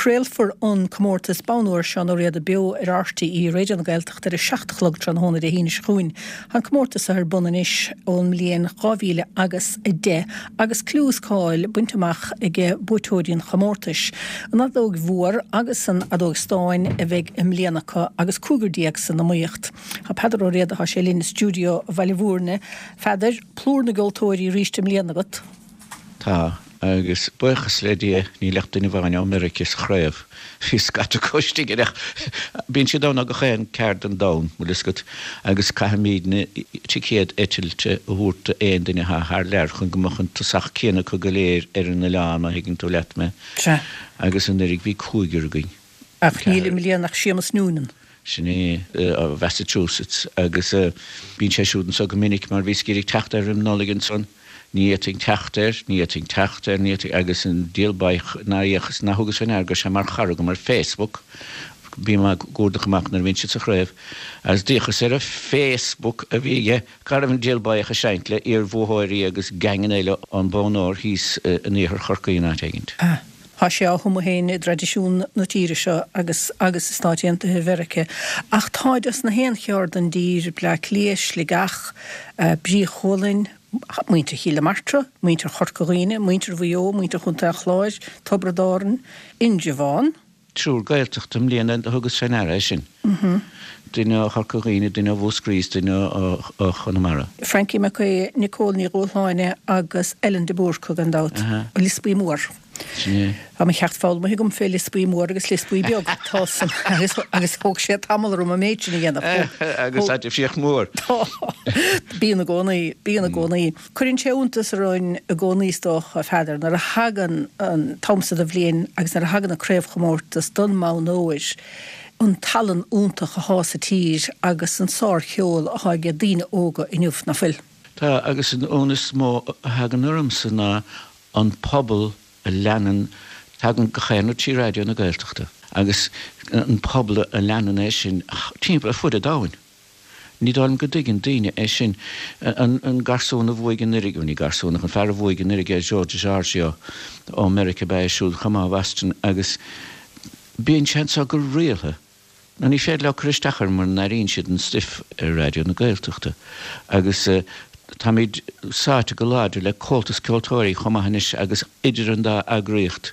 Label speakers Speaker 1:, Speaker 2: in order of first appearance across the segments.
Speaker 1: Craolfar an comórtas Bonn Óir Seán Ó Riada beo ar RTÉ Raidió na Gaeltachta ar a 7 a chlog tráthnóna Dé hAoine seo chugainn. Tá an comórtas seo ar bun anois ón mbliain 2000 agus 10 agus clú is cáil bainte amach ag buaiteoirí an chomórtais. An fheadóg mhór agus an fheadóg stáin a bheidh i mbliana acu agus 15 san iomaíocht. Tá Peadar Ó Riada, tá sé linn i stiúideo Bhaile Mhúirne. Pheadair, plúr na gceoltóirí arís i mbliana agat.
Speaker 2: Tá, agus buíochas le Dia níl ach duine amháin ó Meirice sa chraobh. Bhí scata acu istigh air ach bíonn siad ann ó gach aon ceard den domhan, bhfuil fhios agat, agus caithfimídne ticéad eitilte a thabhairt d'aon duine atá thar lear chun go mbeadh an tosach céanna acu go léir ar an oileán, má thuigeann tú leat mé.
Speaker 1: Sea.
Speaker 2: Agus anuraidh bhí cúigear againn.
Speaker 1: Ach níl i mbliana ach Séamus Noonan.
Speaker 2: Sin é, ó Mhassachusetts, agus bíonn sé siúd anso go minic mar bhíos ag iarraidh teacht air roim Nollaig ansan. Ní fhéadfainn teacht air, ní fhéadfainn teacht air, ní fhéadfainn, agus an diabhal baoth nár fhéachas, nár thugas fé ndeara go raibh sé mar chara agam ar Facebook, bím á gcuardach amach nuair a bhíonn siad sa chraobh, agus d'fhéachas ar an Facebook a bhí aige, cá raibh an diabhal baoth ag seinnt le iar-bhuaitheoirí agus geaingeanna eile ón Bonn Óir thíos in iarthar Chorcaí in áit éigint.
Speaker 1: Tá sé á thumadh féin i dtraidisiún na tíre seo agus agus i Stáit Aontaithe Mheirice. Ach táid as na haon cheard den dtír, Bleá Cliath, Sligeach, Brí Chualainn, muintir Chill na Martra, muintir Chorca Dhuibhne, muintir Mhaigh Eo, muintir Chontae an Chláir, Tiobraid Árann, Indreabhán.
Speaker 2: Triúr Gaeltachta i mbliana do thugas fé ndeara é sin. Duine ó Chorca Dhuibhne, duine ó Mhúscraí is duine ó Chonamara.
Speaker 1: Frankie Mac Aodha, Nicole Ní Dhúshláine agus Ellen de Búrca gan dabht. Lios Buí Mór.
Speaker 2: Sin é.
Speaker 1: Tá mo cheacht foghlamtha agam fé Lios Buí Mór agus Lios Buí Beag. Tá san agus agus thóg sé tamall orm an méid sin a dhéanamh.
Speaker 2: Agus tá difríocht mhór.
Speaker 1: Tá. Bíonn i gcónaí, bíonn i gcónaí. Cuireann sé iontas orainn i gcónaí is dócha, a Pheadair, nuair a thagann an t-am so de bhliain agus nuair a thagann an craobhchomórtas don mbonn óir, an tallann iontach athá sa tír agus an sárcheol athá age daoine óga inniu, ná fuil?
Speaker 2: Tá, agus an ionadh is mó a thagann ormsa ná an pobal a leanann, tagann gach aon rud trí Raidió na Gaeltachta, agus an pobal a leanann é sin timpeall ar fud an domhain. Ní dóigh liom go dtuigeann daoine é sin. An garsún a bhuaigh anuraidh, bhuel ní garsún ach an fear a bhuaigh anuraidh é Joe DiGiorgio ó Meiriceá ab ea é siúd chomh maith ó Bhoston agus bíonn sé anso go rialtha. Nó ní féidir leo cur isteach air mura n-airíonn siad an stuif ar Raidió na Gaeltachta. Agus táimid sáite go láidir le Comhaltas Ceoltóirí chomh maith anois agus idir an dá eagraíocht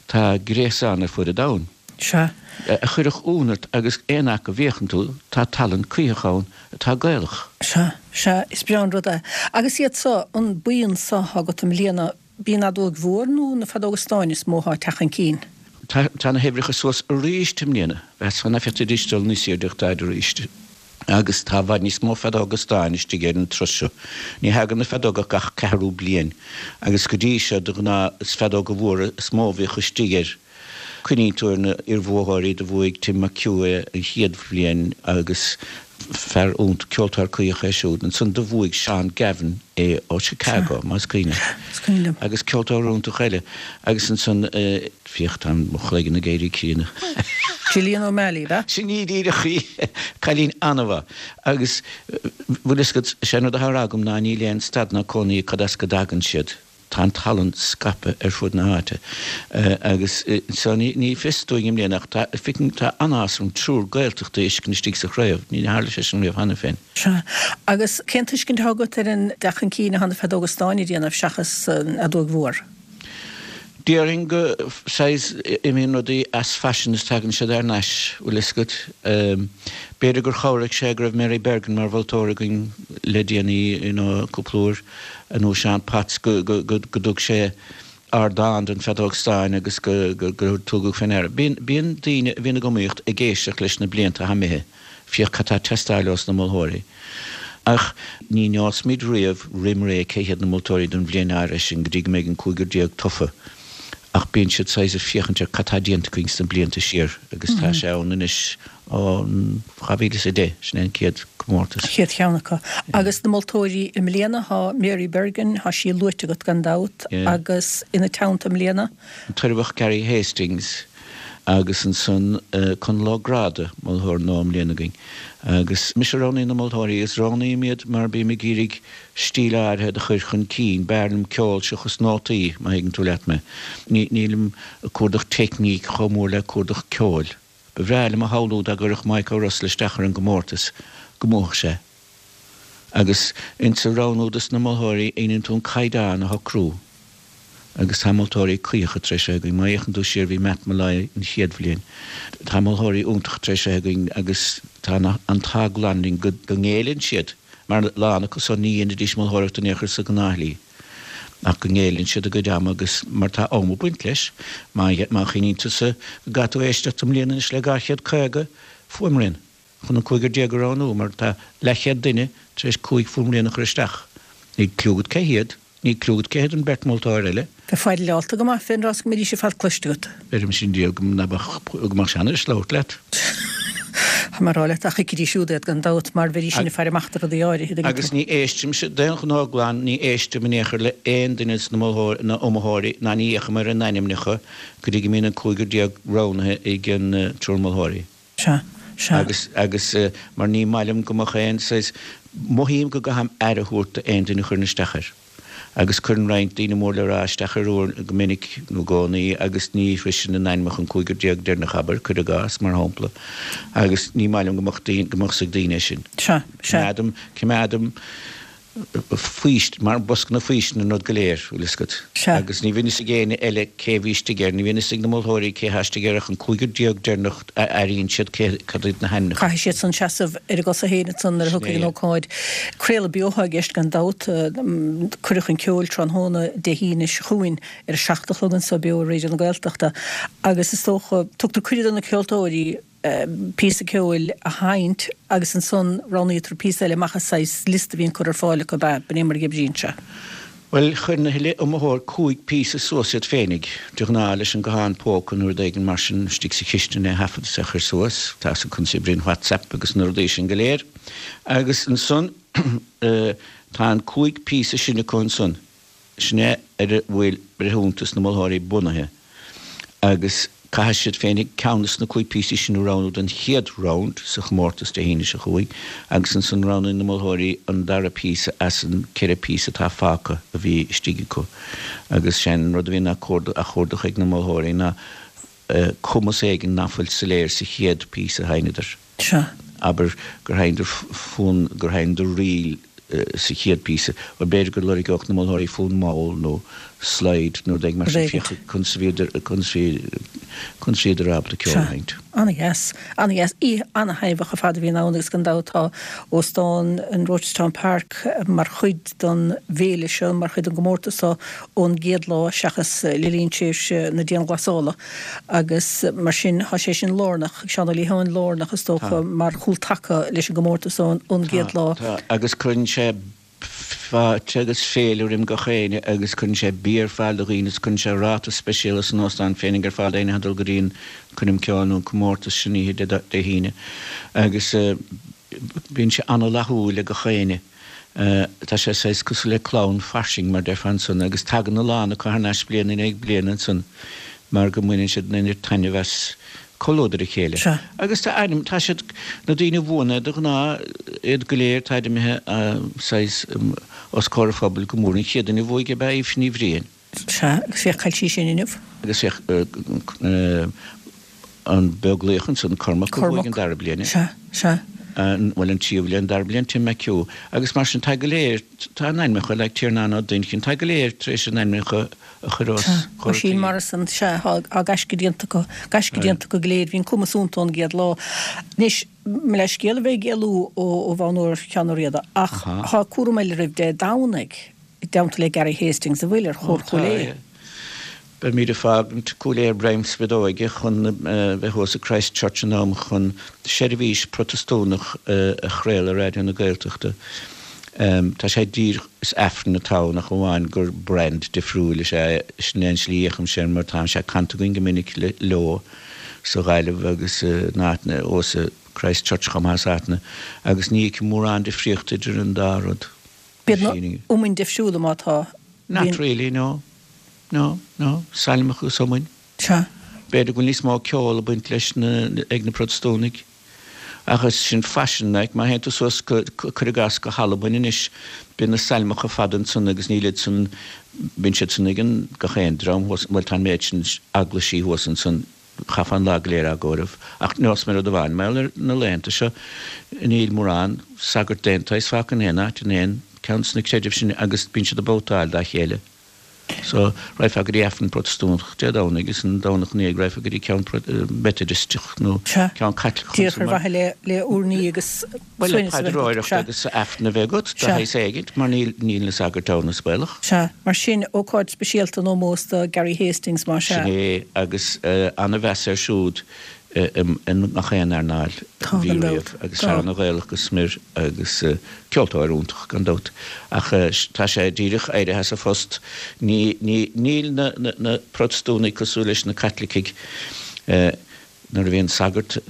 Speaker 2: tá gréasán ar fud an domhain.
Speaker 1: Sea.
Speaker 2: A chuirfeadh ionadh ort agus aon áit go bhféachann tú, tá tallann cuítheach ann atá Gaelach.
Speaker 1: Sea, sea, is breá an rud é. Agus iad so, an buíon so athá agat i mbliana, b'í an fheadóig mhór nó na feadóga stáin is mó athá ag teacht chun cinn?
Speaker 2: Tá, tá na huimhreacha suas arís i mbliana. Mheasfá nach bhféadfaidís dul níos airde ach táid arís. Agus tá i bhfad níos mó feadóga stáin istigh ar an turas seo. Ní thagann na feadóga ach gach ceathrú bliain agus go dtí seo de ghnáth is feadóga mhóra is mó a bhíodh istigh air. Cuimhníonn tú ar na iarbhuaitheoirí, do bhuaigh Tim McHugh é an chéad bhliain agus fear iontach, ceoltóir cuítheach é siúd. Ansan do bhuaigh Seán Gavin é ó Chicago, más cuimhin leat. Agus ceoltóir iontach eile. Agus ansan, féach, tá mo chloigeann ag éirí críonna.
Speaker 1: Gillian O'Malley, ab ea?
Speaker 2: Sin í díreach í! Cailín an-mhaith. Agus, bhfuil fhios agat, sé an rud atá á rá agam ná níl aon stad ná cónaí cad as go dtagann siad. Tá an tallann scaipthe ar fud na háite agus so ní fios dúinn i mbliana ach tá, feicim, tá an-áthas orm triúr Gaeltachta a fheiscint istigh sa chraobh. Ní tharla sé sin riamh cheana féin.
Speaker 1: Sea. Agus cén tuiscint atá agat ar an dteacht chun cinn atá na feadóga stáin a dhéanamh seachas an fheadóig mhór?
Speaker 2: Déarfainn go, saghas, imíonn rudaí as faisean is tagann siad thar n-ais, bhfuil fhios agat. B'fhéidir gur chabhraigh sé go raibh Mary Bergin mar mholtóir againn le déanaí, you know, cúpla uair, nó Seán Potts, go, go, go, go dtug sé ardán don feadóg stáin agus go, go, gur tugadh fé ndeara. Bíonn, bíonn daoine a bhíonn ag iomaíocht ag éisteacht leis na blianta atá imithe. Féach cad tá ag teastáil ós na moltóirí. Ach ní neosfaimid riamh roim ré cé hiad na moltóirí don bhliain áirithe sin go dtí go mbeidh an 15 tofa. Ach bíonn siad saghas ag féachaint ar cad tá déanta againn sna blianta siar agus tá sé ann anois ó 2010, sin é an chéad comórtas.
Speaker 1: Chéad cheann acu. Agus na moltóirí i mbliana, tá Mary Bergin, tá sí luaite agat gan dabht, agus ina teannta i mbliana?
Speaker 2: An tOirbheach Gary Hastings. Agus ansan Conall Ó Gráda, moltóir nua i mbliana againn. Agus mise a roghnaíonn na moltóirí agus roghnaím iad mar bím ag iarraidh stíl áirithe do chur chun cinn. B'fhearr liom ceol seachas nótaí, má thuigeann tú leat mé. Nílim ag cuardach teicníc chomh mór le cuardach ceoil. Ba bhreá liom a shamhlú dá gcuirfeadh Maidhc Ó Rosla isteach ar an gcomórtas, go mbuafadh sé. Agus insa roghnú dos na moltóirí dhéanann tú an caighdeán a shocrú. Agus tá moltóirí cuíocha tar éis a bheith againn. Má fhéachann tú siar bhí Matt Molloy an chéad bhliain. Tá moltóirí iontacha tar éis a bheith againn agus tá an t-ádh glan linn go ngéilleann siad, mar a lán acu san ní dhéanfaidís moltóireacht in aon chor sa ghnáthshlí. Ach go ngéilleann siad a gcuid ama agus mar tá am ag baint leis. Má chuimhníonn tusa go gcaithfidh tú éisteacht i mbliana anois le 250 fuaimrian. chun an cúigear déag a roghnú, mar tá leathchéad duine tar éis 5 fuaimrian a chur isteach. Níl cliú agat cé hiad, níl cliú agat cé hiad an bheirt mholtóir eile.
Speaker 1: Bheifeá fearálta go maith fén rás go mbeidís ar fad cloiste agat.
Speaker 2: Beirimse an diabhal go mbeadh, go mbeadh sé an-deas labhairt leat.
Speaker 1: Tá mé ag rá leat, ach thuigfidís siúd iad gan dabht, mar bheidís sin ag faire amach do rudaí áirithe,
Speaker 2: dtuigeann tú. Agus ní éistimse, d'aon ghnó glan, ní éistim in aon chor le aon duine de na moltóirí, na iomaitheoirí, ná ní fhéachaim ar a n-ainmneacha go dtí go mbíonn an cúigear déag roghnaithe ag an triúr moltóirí.
Speaker 1: Sea, sea.
Speaker 2: Agus, agus mar ní maith liom go mbeadh aon saghas, mothaím go gcaithim aire a thabhairt d'aon duine a chuireann isteach air. Agus cuireann roinnt daoine mór le rá isteach air uair, go minic nó i gcónaí agus ní shroiseann a n-ainmneacha an cúigear déag deireanach, abair, cuir i gcás, mar shampla. Agus ní maith liom go mbeadh daoine, go mbeadh 's ag daoine é sin.
Speaker 1: Sea, sea.
Speaker 2: Coimeádaim, coimeádaim. faoist, mar bosca na faoistine an rud go léir, bhfuil fhios agat.
Speaker 1: Sea.
Speaker 2: Agus ní bhíonn fhios ag éinne eile cé bhí istigh air, ní bhíonn fhios ag na moltóirí cé thá istigh air ach an cúigear déag deireanach a airíonn siad cé, cad iad na hainmneacha.
Speaker 1: Caithfidh siad san seasamh ar a gcosa féin ansan nuair a
Speaker 2: Sin
Speaker 1: thiocfaidh
Speaker 2: é.
Speaker 1: an ócáid. Craoladh beo atá i gceist gan dabht. Cuireadh chun Ceoil tráthnóna Dé hAoine seo chugainn ar a 7 a chlog anso beo ar Raidió na Gaeltachta agus is dócha, tugtar cuireadh do na ceoltóirí, píosa ceoil a sheinnt agus ansan roghnaítear píosa eile amach as saghas liosta a bhíonn curtha ar fáil acu, ab ea? B'in é mar a oibríonn sé.
Speaker 2: Bhuel, chuir na huile iomaitheoir 5 píosa suas iad féinig, de ghnáth leis an guthán póca nó rud éigin mar sin, istigh sa chistin é a thaifead is é a chur suas, tá 'fhios agat conas a oibríonn WhatsApp agus na rudaí sin go léir. Agus ansan tá an 5 píosa sin acu ansan. Sin é ar a bhfuil breithiúntas na moltóirí bunaithe agus caithfidh siad féinig ceann de na 5 píosaí sin a roghnú don chéad round sa chomórtas Dé hAoine seo chugainn agus ansan roghnaíonn na moltóirí an dara píosa as an 4 píosa atá fágtha a bhí istigh acu agus sé an rud a bhíonn á chuardach ag na moltóirí ná cumas éigin ná fuil soiléir sa chéad píosa a sheinneadar.
Speaker 1: Sea.
Speaker 2: Abair gur sheinneadar fonn, gur sheinneadar ríl sa chéad píosa. Bhuel, b'fhéidir go lorgódh na moltóirí fonn mall nó slide nó rud éigin mar sin, féach conas a bhíodar, conas a bhí, conas a bhíodar ábalta ceol a
Speaker 1: Sea.
Speaker 2: sheinnt.
Speaker 1: Ana-dheas. Ana-dheas. Oíche ana-thaitneamhach ar fad a bhíonn ann agus gan dabht tá Óstán an Rochestown Park mar chuid den bhféile seo, mar chuid den gcomórtas seo ón gcéad lá seachas le linn tréimhse na dianghlasála. Agus mar sin, tá sé sin lárnach, Seán Ó Liatháin, lárnach is dócha mar chúltaca leis an gcomórtas ón gcéad lá.
Speaker 2: Tá, agus cuireann sé fáilte agus féile roim gach éinne agus cuireann sé bia ar fáil do dhaoine agus cuireann sé ráta speisialta san óstán féinig ar fáil d'éinne atá ag dul go dtí an coirm ceoil nó an comórtas sin oíche Dé hAoine agus bíonn sé ana-fhlaithiúil ag gach éinne. Tá sé saghas cosúil le clann fairsing, mar déarfá ansan, agus tagann a lán acu thar n-ais bliain i ndiaidh bliana ansan mar go mbaineann siad an oiread taitneamh as comhluadar a chéile.
Speaker 1: Sea.
Speaker 2: Agus tá ainm, tá siad, na daoine a bhuann é de ghnáth, iad go léir, táid imithe saghas os comhair an phobail go mór. An chéad duine a bhuaigh ab ea Aoife Ní Bhriain.
Speaker 1: Sea, agus féach, chaill sí sin inniu.
Speaker 2: Agus féach, an Beaglaoich ansan, Cormac a bhuaigh an dara bliain.
Speaker 1: Sea, sea.
Speaker 2: Bhuel, an tríú bliain, an dara bliain, Tim McHugh. Agus mar sin, tá go léir, tá a n-ainmneacha, like Tiarnán Ó Duinnchinn, tá go léir tar éis a n-ainmneacha a chur os
Speaker 1: Sea,
Speaker 2: comhair
Speaker 1: Oisín
Speaker 2: an tsaoil.
Speaker 1: Morrison, sea, tá gaisce déanta acu, gaisce déanta acu go léir, bhí an cumas iontu ón gcéad lá. Anois, mo leithscéal a bheith ag éalú ó bhonn úr Sheáin Ó Riada, ach tá cúram eile roimh Dé Domhnaigh. i dteannta le Gary Hastings an bhfuil ar Chór
Speaker 2: Ó,
Speaker 1: Chúil
Speaker 2: tá,
Speaker 1: Aodha.
Speaker 2: yeah. Beimid ag fágaint Cúil Aodha ar greim spideoige chun bheith thuas i Christ Church in am chun seirbhís Protastúnach a chraoladh ar Raidió na Gaeltachta. Tá sé díreach, is Aifreann atá ann ach amháin gur brand difriúil is ea é. Sin é an slí a fhéachaimse air mar tá sé canta againn go minic leo sa Ghaillimh agus in áiteanna, thuas i Christ Church chomh maith is áiteanna agus ní fheicim mórán difríochta idir an dá rud.
Speaker 1: Bíonn na iomainn difriúla má tá.
Speaker 2: Not really, no. No, no. Sailmeacha agus iomainn.
Speaker 1: Sea.
Speaker 2: B'fhéidir go bhfuil níos mó ceol ag baint leis na, ag na Protastúnaigh. Ach is sin faisean, like, má théann tú suas go, cuir i gcás, go hAlbain anois, bíonn na sailmeacha fada ansan agus níl iad san, bíonn siad san ag an, gach aon dream thuas, bhuel tá an méid sin eaglaisí thuas ansan, chaithfeá an lá go léir á gcomhaireamh. Ach nós mé rud amháin, mar gheall ar na laethanta seo, níl mórán sagart d'aon tsaghas fágtha in aon áit, in aon ceann de na creidimh sin agus bíonn siad ag babhtáil dá chéile. So, raghfá go dtí Aifreann Protastúnach Dé Domhnaigh is an Domhnach ina dhiaidh raghfá go dtí ceann Meitidisteach nó ceann Caitliceach
Speaker 1: Díreach ar mhaithe le le urnaí agus
Speaker 2: Bhuel, le suaimhneas a bheith agat. paidreoireacht Sea. agus Aifreann a bheith agat, de Sea. shaghas éigint, mar níl níl na sagairt ann is baolach.
Speaker 1: Sea. Mar sin, ócáid speisialta in ómós do Gary Hastings, más
Speaker 2: ea. Sin é, agus ana-mheas air siúd i ngach aon earnáil a bhí riamh agus fear ana-Ghaelach go smior agus ceoltóir iontach gan dabht ach tá sé díreach éirithe as a phost. Ní, ní, níl na, na, na Protastúnaigh cosúil leis na Caitlicigh. Nuair a bhíonn sagart,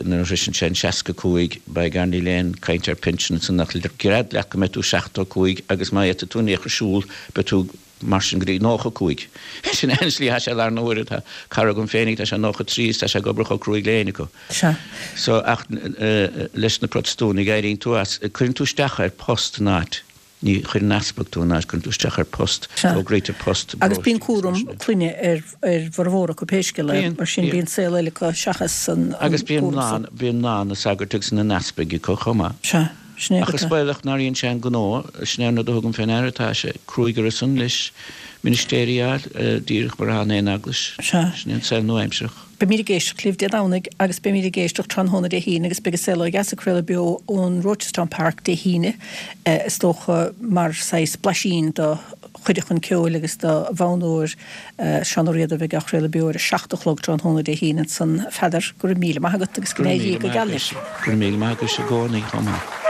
Speaker 2: nuair a shroiseann sé an 65, by gar níl aon caint ar pinsean ansan ach gread leat go mbeidh tú 75 agus má fhéadfaidh tú in aon chor siúl beidh tú Mar sin go dtí 95. Sin é an slí atá sé i láthair na huaire. Tá cara agam féinig, tá sé 93 is tá sé ag obair chomh cruaidh le éinne acu.
Speaker 1: Sea.
Speaker 2: So, ach leis na Protastúnaigh, éiríonn tú as, cuireann tú isteach ar post in áit, ní chuireann easpag tú in áit, cuireann tú isteach ar post,
Speaker 1: Sea.
Speaker 2: fógraítear post
Speaker 1: i Agus bíonn cúram clainne ar ar bhformhór acu pé scéal é. Bíonn, Mar sin bíonn saol eile acu seachas an
Speaker 2: Agus bíonn cúram mná, san. bíonn mná na sagairt agus na n-easpaig acu chomh maith.
Speaker 1: Sea.
Speaker 2: Sin é Ach is baolach nár dhein sé an gnó, sin é an rud a thugaim fé ndeara, tá sé cruaidh orthusan leis ministéirí a fháil, díreach mar atá in aon eaglais.
Speaker 1: Sea.
Speaker 2: Sin é an saol nua-aimsearach.
Speaker 1: Beimid ag éisteacht libh Dé Domhnaigh agus beimid ag éisteacht tráthnóna Dé hAoine agus beidh An Saol Ó Dheas ag craoladh beo ón Rochestown Park Dé hAoine, is dócha mar saghas blaisín do chuireadh chun ceoil agus do bhonn óir Seán Ó Riada a bheidh á chraoladh beo ar a 7 a chlog tráthnóna Dé hAoine ansan. A Pheadair, go raibh míle maith agat agus go
Speaker 2: Go raibh míle maith agat. Go raibh míle maith agat i gcónaí chomh maith.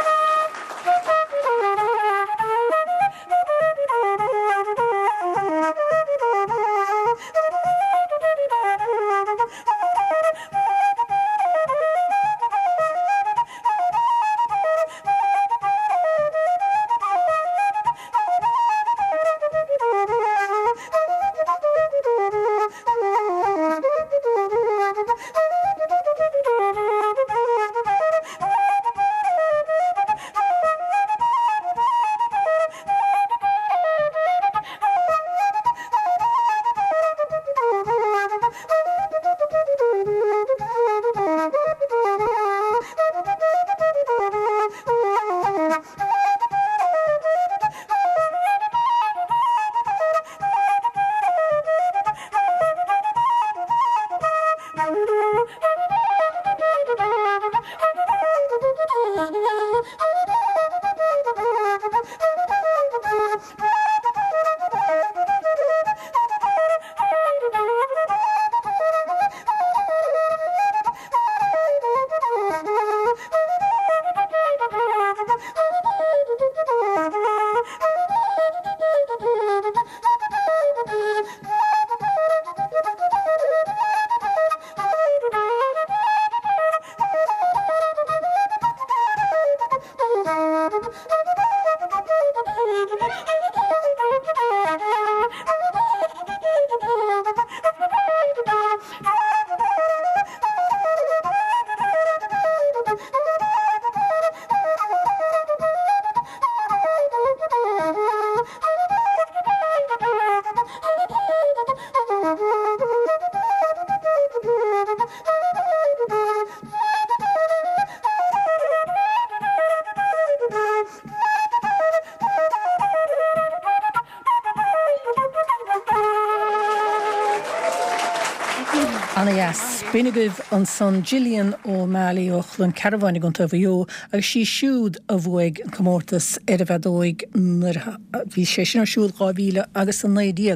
Speaker 1: Ana-dheas. B'in agaibh ansan Gillian O'Malley ó Chluain Cearbháin i gContae Mhaigh Eo agus sí siúd a bhuaigh an comórtas ar an bhfeadóig nuair a bhí sé sin ar siúl 2000 agus 19.